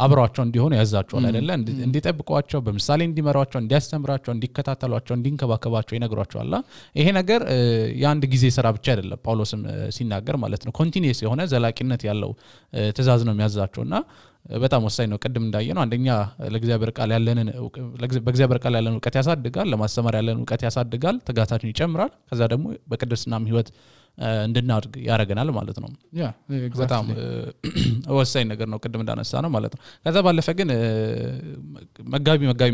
አብራቸው እንዲሆኑ ያዛቸዋል አይደለ እንዲጠብቋቸው በምሳሌ እንዲመራቸው እንዲያስተምራቸው እንዲከታተሏቸው እንዲንከባከባቸው ይነግሯቸዋል ይሄ ነገር የአንድ ጊዜ ስራ ብቻ አይደለም ጳውሎስም ሲናገር ማለት ነው ኮንቲኒየስ የሆነ ዘላቂነት ያለው ትእዛዝ ነው የሚያዛቸውና በጣም ወሳኝ ነው ቀደም እንዳየነው አንደኛ ለእግዚአብሔር ቃል ያለንን በእግዚአብሔር ቃል ያለንን ዕውቀት ያሳድጋል ለማስተማር ያለንን ዕውቀት ያሳድጋል ተጋታችን ይጨምራል ከዛ ደግሞ በቅድስናም ህይወት እንድናድግ ያረጋናል ማለት ነው ያ በጣም ወሳኝ ነገር ነው ቀደም እንዳነሳ ነው ማለት ነው ከዛ ባለፈ ግን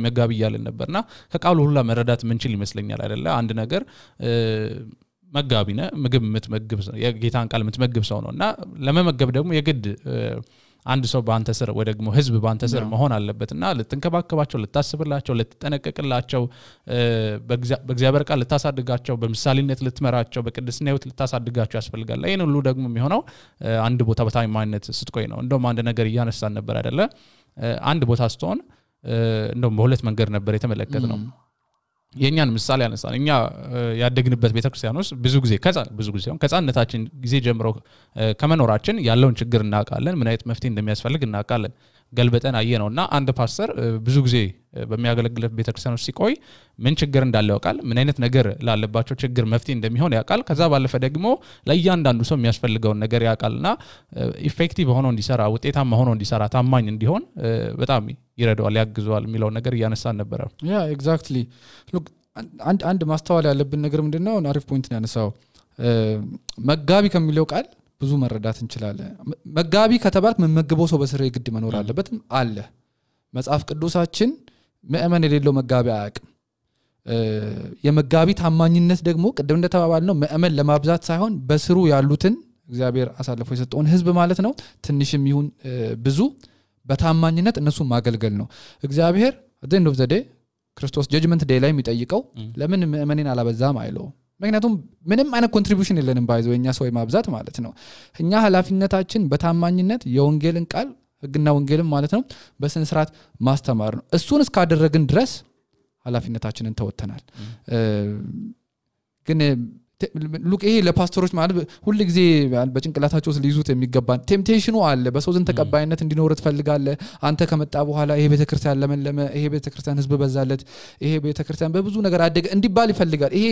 መጋቢ ይያልን ነበርና ከቃሉ ሁሉ መረዳት ምንችል ይመስለኛል አይደለ አንድ ነገር መጋቢነ ምግብ የምትመግብ የጌታን ቃል የምትመግብ ሰው ነውና ለመመገብ ደግሞ የግድ አንድ ሰው በአንተ ስር ወይ ደግሞ ህዝብ በአንተ ስር መሆን አለበትና ልትንከባከባቸው ልታስብላቸው ልትጠነቀቅላቸው በእግዚአብሔር ቃል ልታሳድጋቸው በምሳሌነት ልትመራቸው በቅድስና ህይወት ልታሳድጋቸው ያስፈልጋል ይሄን ሁሉ ደግሞ የሚሆነው አንድ ቦታ በታማኝነት ስትቆይ ነው እንደውም አንድ ነገር እያነሳን ነበር አይደለ አንድ ቦታ ስትሆን እንደውም በሁለት መንገድ ነበር የተመለከተው የኛን ምሳሌ ያነሳን እኛ ያደግንበት ቤተክርስቲያን ውስጥ ብዙ ጊዜ ከጻነታችን ጊዜ ጀምሮ ከመኖራችን ያለውን ችግር እናውቃለን ምን አይነት መፍትሄ እንደሚያስፈልግ እናውቃለን ገልበጠን አየነውና አንድ ፓስተር ብዙ ጊዜ በሚያገለግልበት ቤተክርስቲያን ውስጥ ሲቆይ ምን ችግር እንዳለ ያውቃል ምን አይነት ነገር ላለባቸው ችግር መፍትሄ እንደሚሆን ያውቃል ከዛ ባለፈ ደግሞ ለእያንዳንዱ ሰው የሚያስፈልገውን ነገር ያውቃልና ኢፌክቲቭ ሆኖ እንዲሰራ ውጤታማ ሆኖ እንዲሰራ ታማኝ እንዲሆን በጣም ይረዳዋል ያግዘዋል የሚለው ነገር እያነሳን ነበር ያ ኤግዛክትሊ ሉክ አንድ ማስተዋል ያለብን ነገር ምንድነው አሪፍ ፖይንት ነው ያነሳው መጋቢ ከሚለው ቃል ብዙ መረዳት እንችላለን መጋቢ ከተባለ መመገበው ሰው በስሬ ግድ መኖር አለበት አለ መጽሐፍ ቅዱሳችን ምእመን የሌለው መጋቢ አያውቅም የመጋቢ ታማኝነት ደግሞ ቀደም እንደተባባልነው ምእመን ለማብዛት ሳይሆን በስሩ ያሉትን እግዚአብሔር አሳልፎ የሰጠውን ህዝብ ማለት ነው ትንሽም ይሁን ብዙ በታማኝነት እነሱ ማገልገል ነው እግዚአብሔር at the end of the day ክርስቶስ ጀጅመንት ዴይ ላይ የሚጠይቀው ለምን ምእመኔን አላበዛም አይለው ምክንያቱም ምንም አይነት ኮንትሪቢዩሽን የለንም ባይዘው የኛ ሰው ማብዛት ማለት ነው እኛ ኃላፊነታችን በታማኝነት የወንጌልን ቃል ህግና ወንጌልን ማለት ነው በስነ ስርዓት ማስተማር ነው እሱን እስካደረግን ድረስ ኃላፊነታችንን ተወጥተናል ግን ሉክ ይሄ ለፓስተሮች ማለት ሁሉ ጊዜ በጭንቅላታቸው ሊይዙት የሚገባ ቴምፕቴሽኑ አለ በሰው ዘንድ ተቀባይነት እንዲኖር ትፈልጋለህ አንተ ከመጣ በኋላ ይሄ ቤተክርስቲያን ለመለመ ይሄ ቤተክርስቲያን ህዝብ በዛለት ይሄ ቤተክርስቲያን በብዙ ነገር አደገ እንዲባል ይፈልጋል ይሄ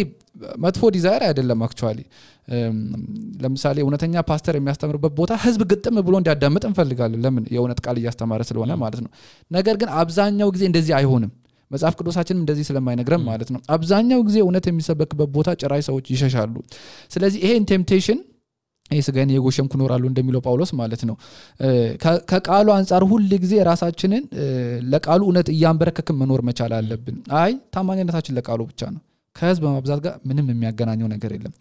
መጥፎ ዲዛይር አይደለም አክቹአሊ ለምሳሌ እውነተኛ ፓስተር የሚያስተምርበት ቦታ ህዝብ ግጥም ብሎ እንዲያዳምጥ እንፈልጋለን ለምን የእውነት ቃል እያስተማረ ስለሆነ ማለት ነው ነገር ግን አብዛኛው ጊዜ እንደዚህ አይሆንም መጽሐፍ ቅዱሳችንም እንደዚህ ስለማይነግረን ማለት ነው አብዛኛው ጊዜ እውነት የሚሰበክበት ቦታ ጭራይ ሰዎች ይሸሻሉ ስለዚህ ይሄን ቴምፕቴሽን ይስጋን የጎሸምኩ ኖራሉ እንደሚለው ጳውሎስ ማለት ነው ከቃሉ አንፃር ሁሉ ጊዜ ራሳችንን ለቃሉ እውነት እያንበረከክን መኖር መቻል አለብን አይ ታማኝነታችን ለቃሉ ብቻ ነው ከህዝብ በማብዛት ጋር ምንም የሚያገናኘው ነገር የለም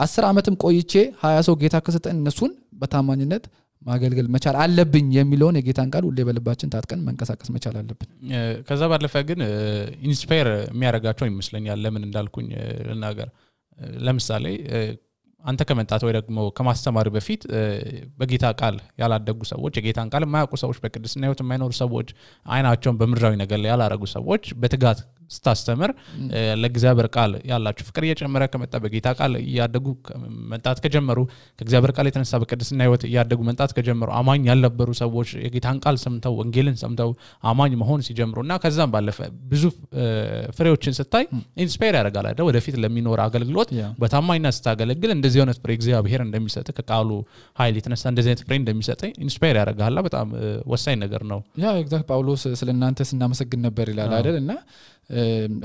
10 አመትም ቆይቼ 20 ሰው ጌታ ከሰጠን እነሱን በታማኝነት ማገልገል መቻል አለብኝ የሚለውን የጌታን ቃል ሁሌ በልባችን ታጥቀን መንቀሳቀስ መቻል አለብን ከዛ ባለፈ ግን ኢንስፓየር የሚያረጋቸው ይመስለኛል ለምን እንዳልኩኝ ለናገር ለምሳሌ አንተ ከመጣት ወይ ደግሞ ከማስተማር በፊት በጌታ ቃል ያላደጉ ሰዎች የጌታን ቃል የማያውቁ ሰዎች በቅድስና ህይወት የማይኖሩ ሰዎች አይናቸውን በምድራዊ ነገር ላይ ያላረጉ ሰዎች በትጋት ስታስተምር ለእግዚአብሔር ቃል ያላችሁ ፍቅር እየጨመረ ከመጣ በጌታ ቃል ያደጉ መንጣት ከጀመሩ ከእግዚአብሔር ቃል የተነሳ በቅድስና ህይወት ያደጉ መንጣት ከጀመሩ አማኝ ያልነበሩ ሰዎች የጌታን ቃል ሰምተው ወንጌልን ሰምተው አማኝ መሆን ሲጀምሩና ከዛም ባለፈ ብዙ ፍሬዎችን ስታይ ኢንስፓየር ያደርጋል አይደል ወደፊት ለሚኖር አገልግሎት በታማኝነት ስታገለግል እንደዚህ አይነት ፍሬ እግዚአብሔር እንደሚሰጥ ከቃሉ ኃይል የተነሳ እንደዚህ አይነት ፍሬ እንደሚሰጥ ኢንስፓየር ያደርጋል በጣም ወሳኝ ነገር ነው ያ ኤግዛክት ጳውሎስ ስለናንተ ስናመሰግን ነበር ይላል አይደል እና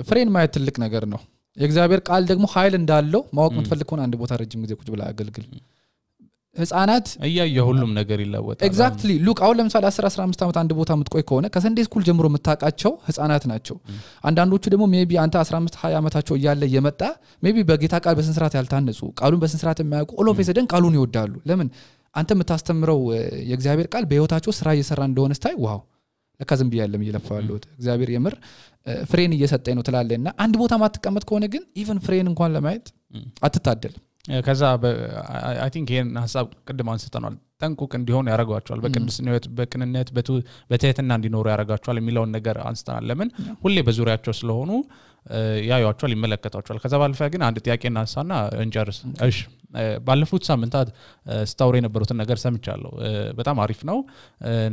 ፍሬን ማየት ትልቅ ነገር ነው የእግዚአብሔር ቃል ደግሞ ኃይል እንዳለው ማወቅ የምትፈልግ ከሆነ አንድ ቦታ ረጅም ጊዜ ቁጭ ብላ አገልግል ህፃናት ሁሉም ነገር ይለወጣል ኤግዛክትሊ ሉክ አሁን ለምሳሌ 10-15 ዓመት አንድ ቦታ የምትቆይ ከሆነ ከሰንዴ ስኩል ጀምሮ የምታውቃቸው ህፃናት ናቸው አንዳንዶቹ ደግሞ ሜቢ አንተ 15-20 ዓመታቸው እያለ የመጣ ሜቢ በጌታ ቃል በስንስራት ያልታነጹ ቃሉን በስንስራት የማያውቁ ኦል ኦፍ ሰደን ቃሉን ይወዳሉ ለምን አንተ የምታስተምረው የእግዚአብሔር ቃል በህይወታቸው ስራ እየሰራ እንደሆነ ስታይ ዋው ለካ ዝም ብያለም እየለፋዋለሁ እግዚአብሔር የምር ፍሬን እየሰጠኝ ነው ትላለና አንድ ቦታ ማትቀመጥ ከሆነ ግን ኢቭን ፍሬን እንኳን ለማየት አትታደልም ከዛ አይ ቲንክ ይሄን ሐሳብ ቅድም አንስተናል ጠንቁቅ እንዲሆን ያረጋቸዋል በቅድስና ህይወት በቅንነት በትህትና እንዲኖሩ ያረጋቸዋል የሚለውን ነገር አንስተናል ለምን ሁሌ በዙሪያቸው ስለሆኑ ያዩዋቸዋል ይመለከታቸዋል ከዛ ባለፈ ግን አንድ ጥያቄ እናንሳና እንጨርስ እሺ ባለፉት ሳምንታት ስታውሪ የነበሩትን ነገር ሰምቻለሁ በጣም አሪፍ ነው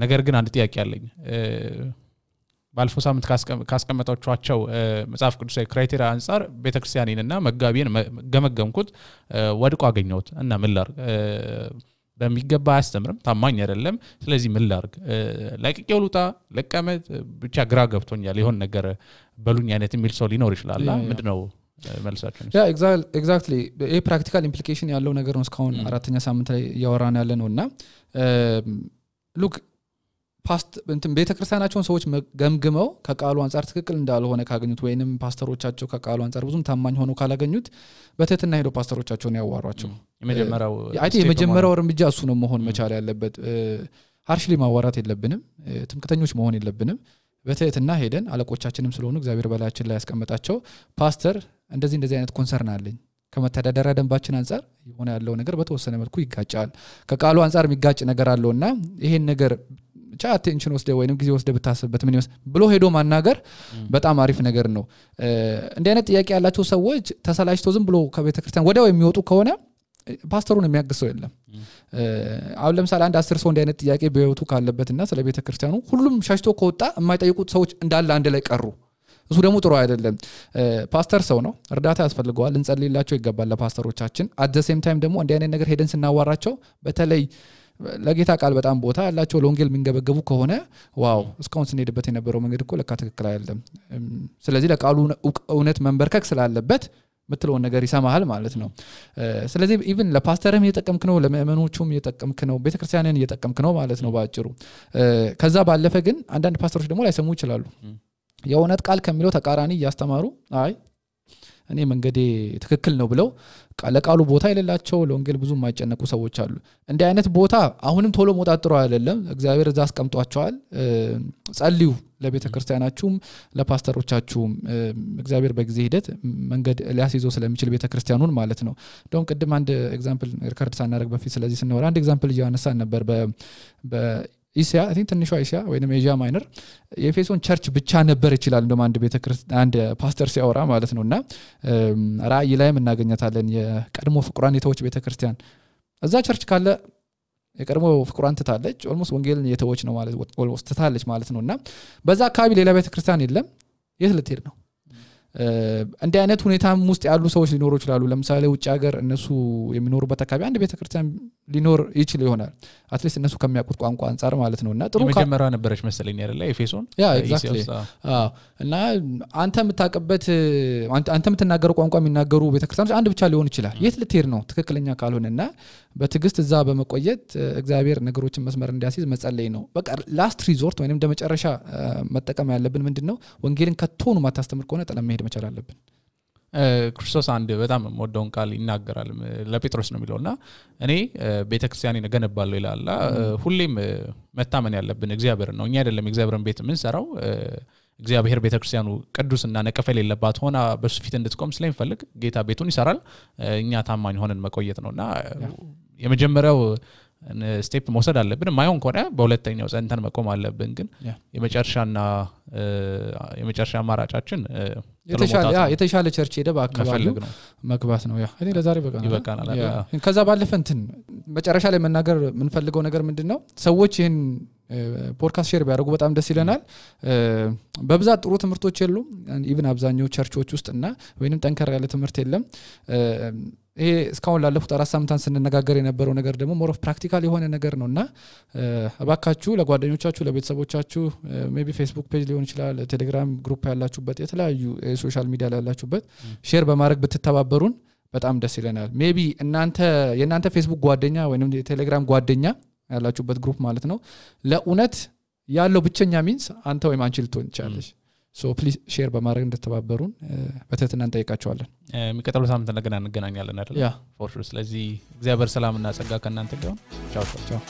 ነገር ግን አንድ ጥያቄ አለኝ ባለፈው ሳምንት ካስቀመጣችኋቸው መጽሐፍ ቅዱሳዊ ክራይቴሪያ አንፃር ቤተክርስቲያኔንና መጋቢን ገመገምኩት ወድቆ አገኘሁት እና ምን ላድርግ በሚገባ አያስተምርም ታማኝ አይደለም ስለዚህ ምን ላድርግ ለቅቄው ልውጣ ለቀመጥ ብቻ ግራ ገብቶኛል ይሆን ነገር በሉኝ አይነት የሚል ሰው ሊኖር ይችላል ምንድነው መልሳችሁ ያ ኤግዛክትሊ ይሄ ፕራክቲካል ኢምፕሊኬሽን ያለው ነገር ነው እስካሁን አራተኛ ሳምንት ላይ ያወራን ያለ ነውና ሉክ ፓስት እንትን ቤተክርስቲያናቸውን ሰዎች ገምግመው ከቃሉ አንፃር ትክክል እንዳልሆነ ካገኙት ወይንም ፓስተሮቻቸው ከቃሉ አንፃር ብዙም ታማኝ ሆነው ካላገኙት በትህትና ሄዶ ፓስተሮቻቸውን ያዋሯቸው የመጀመሪያው እርምጃ እሱ ነው መሆን መቻል ያለበት ሃርሽሊ ማዋራት የለብንም ትምክተኞች መሆን የለብንም በትህትና ሄደን አለቆቻችንም ስለሆኑ እግዚአብሔር በላያችን ላይ ያስቀመጣቸው ፓስተር እንደዚህ አይነት ኮንሰርን አለኝ ከመተዳደሪያ ደንባችን አንፃር የሆነ ያለው ነገር በተወሰነ መልኩ ይጋጫል ከቃሉ አንፃር የሚጋጭ ነገር አለውና ይሄን ነገር ብቻ አቴንሽን ወስደ ወይንም ጊዜ ወስደ ብታስብበት ምን ይወስ ብሎ ሄዶ ማናገር በጣም አሪፍ ነገር ነው እንደ አይነት ጥያቄ ያላቸው ሰዎች ተሰላችተው ዝም ብሎ ከቤተክርስቲያን ወዲያው የሚወጡ ከሆነ ፓስተሩን የሚያግሰው የለም አሁን ለምሳሌ አንድ 10 ሰው እንደ አይነት ጥያቄ በህይወቱ ካለበትና ስለ ቤተክርስቲያኑ ሁሉም ሻሽቶ ከወጣ የማይጠይቁት ሰዎች እንዳለ አንድ ላይ ቀሩ እሱ ደግሞ ጥሩ አይደለም ፓስተር ሰው ነው እርዳታ ያስፈልገዋል እንጸልይላቸው ይገባል ለፓስተሮቻችን at the same time ደግሞ እንደ አይነት ነገር ሄደን ስናዋራቸው በተለይ ለጌታ ቃል በጣም ቦታ ያላቸው ለወንጌል ምንገበገቡ ከሆነ ዋው እስካሁን ስንሄድበት የነበረው መንገድ እኮ ለካ ትክክል አይደለም ስለዚህ ለቃሉ እውነት መንበርከክ ስላለበት ምትለው ነገር ይሰማሃል ማለት ነው ስለዚህ ኢቭን ለፓስተርም እየተጠቀምክ ነው ለምእመኖቹም እየተጠቀምክ ነው ቤተክርስቲያንን እየተጠቀምክ ነው ማለት ነው ባጭሩ ከዛ ባለፈ ግን አንዳንድ ፓስተሮች ደግሞ ላይሰሙ ይችላሉ የእውነት ቃል ከሚለው ተቃራኒ ያስተማሩ አይ እኔ መንገዴ ትክክል ነው ብለው ለቃሉ ቦታ የሌላቸው ለወንጌል ብዙ የማይጨነቁ ሰዎች አሉ እንደ አይነት ቦታ አሁንም ቶሎ መውጣት አይደለም እግዚአብሔር እዛ አስቀምጧቸዋል ጸልዩ ለቤተክርስቲያናችሁም ለፓስተሮቻችሁም እግዚአብሔር በጊዜ ሂደት መንገድ ሊያስይዘው ስለሚችል ቤተክርስቲያኑን ማለት ነው ዶን ቅድም አንድ ኤግዛምፕል ሪከርድ ሳናደርግ በፊት ስለዚህ ስንወራ አንድ ኤግዛምፕል ያነሳን ነበር በኢሲያ አይ ቲንክ ትንሿ ኢሲያ ወይንም ኤዥያ ማይነር የኤፌሶን ቸርች ብቻ ነበር ይችላል እንደማ አንድ ቤተክርስቲያን አንድ ፓስተር ሲያወራ ማለት ነውና ራእይ ላይም እናገኛታለን የቀድሞ ፍቁራን የተወች ቤተክርስቲያን እዛ ቸርች ካለ የቀድሞ ፍቁራን ትታለች ኦልሞስት ወንጌልን የተወች ነው ማለት ኦልሞስት ትታለች ማለት ነውና በዛ አካባቢ ሌላ ቤተክርስቲያን የለም የት ልትሄድ ነው እንደ አይነት ሁኔታም ውስጥ ያሉ ሰዎች ሊኖሩ ይችላሉ ለምሳሌ ውጭ ሀገር እነሱ የሚኖሩበት አካባቢ አንድ ቤተክርስቲያን ሊኖር ይችላል ይሆናል አትሊስት እነሱ ከሚያውቁት ቋንቋ አንፃር ማለት ነውና ጥሩ መጀመሪያ ነበረች መሰለኝ አይደለ ኤፌሶን ያ ኤግዛክትሊ እና አንተ የምታቀበት አንተ የምትናገረው ቋንቋ የሚናገሩ ቤተክርስቲያኖች አንድ ብቻ ሊሆን ይችላል የት ልትሄድ ነው ትክክለኛ ካልሆነና በትግስት እዛ በመቆየት እግዚአብሔር ነገሮችን መስመር እንዲያስይዝ መጸለይ ነው በቃ ላስት ሪዞርት ወይንም እንደመጨረሻ መጠቀም ያለብን ምንድነው ወንጌልን ከቶኑ ማታስተምር ከሆነ ጠለም መሄድ መቻል አለብን ክርስቶስ አንድ በጣም ወደውን ቃል ይናገራል ለጴጥሮስ ነው የሚለውና እኔ ቤተክርስቲያኔን እገነባለሁ ይላል ሁሌም መታመን ያለብን እግዚአብሔር ነው እኛ አይደለም እግዚአብሔርን ቤት ምን ሰራው እግዚአብሔር ቤተክርስቲያኑ ቅዱስና ነቀፋ የሌለባት ሆና በሱ ፊት እንድትቆም ስለሚፈልግ ጌታ ቤቱን ይሰራል እኛ ታማኝ ሆነን መቆየት ነውና የመጀመሪያው ስቴፕ መውሰድ አለብን ማይሆን ከሆነ በሁለተኛው ጸንተን መቆም አለብን ግን የመጨረሻ አማራጫችን የተሻለ ቸርች ሄደ በአካባቢው መግባት ነው እኔ ለዛሬ ይበቃናል ከዛ ባለፈ እንትን መጨረሻ ላይ መናገር ምን ፈልገው ነገር ምንድነው ሰዎች ይሄን ፖድካስት ሼር ቢያደርጉ በጣም ደስ ይለናል በብዛት ጥሩ ትምህርቶች የሉም ኢቭን አብዛኛው ቸርቾች ውስጥና ወይንም ጠንከር ያለ ትምህርት የለም ይሄ እስካሁን ላለፉት 4 ሳምንታት ስንነጋገር የነበረው ነገር ደግሞ ሞር ኦፍ ፕራክቲካል የሆነ ነገር ነውና አባካችሁ ለጓደኞቻችሁ ለቤተሰቦቻችሁ ሜቢ ፌስቡክ ፔጅ ሊሆን ይችላል ቴሌግራም ግሩፕ ያላችሁበት የተለያዩ ሶሻል ሚዲያ ላይ ያላችሁበት ሼር በማድረግ ብትተባበሩን በጣም ደስ ይለናል ሜቢ የናንተ ፌስቡክ ጓደኛ ወይንም የቴሌግራም ጓደኛ ያላችሁበት ግሩፕ ማለት ነው ለኡነት ያለው ብቸኛ ሚንስ አንተ ወይም አንቺ ልትሆን ይችላልሽ so please share በማድረግ እንድትተባበሩን በተትና እንጠይቃችኋለን የሚቀጥለው ሳምንት እንደገና እንገናኛለን አይደል ያ for sure ስለዚህ እግዚአብሔር ሰላምና ጸጋ ከእናንተ ጋር ቻው ቻው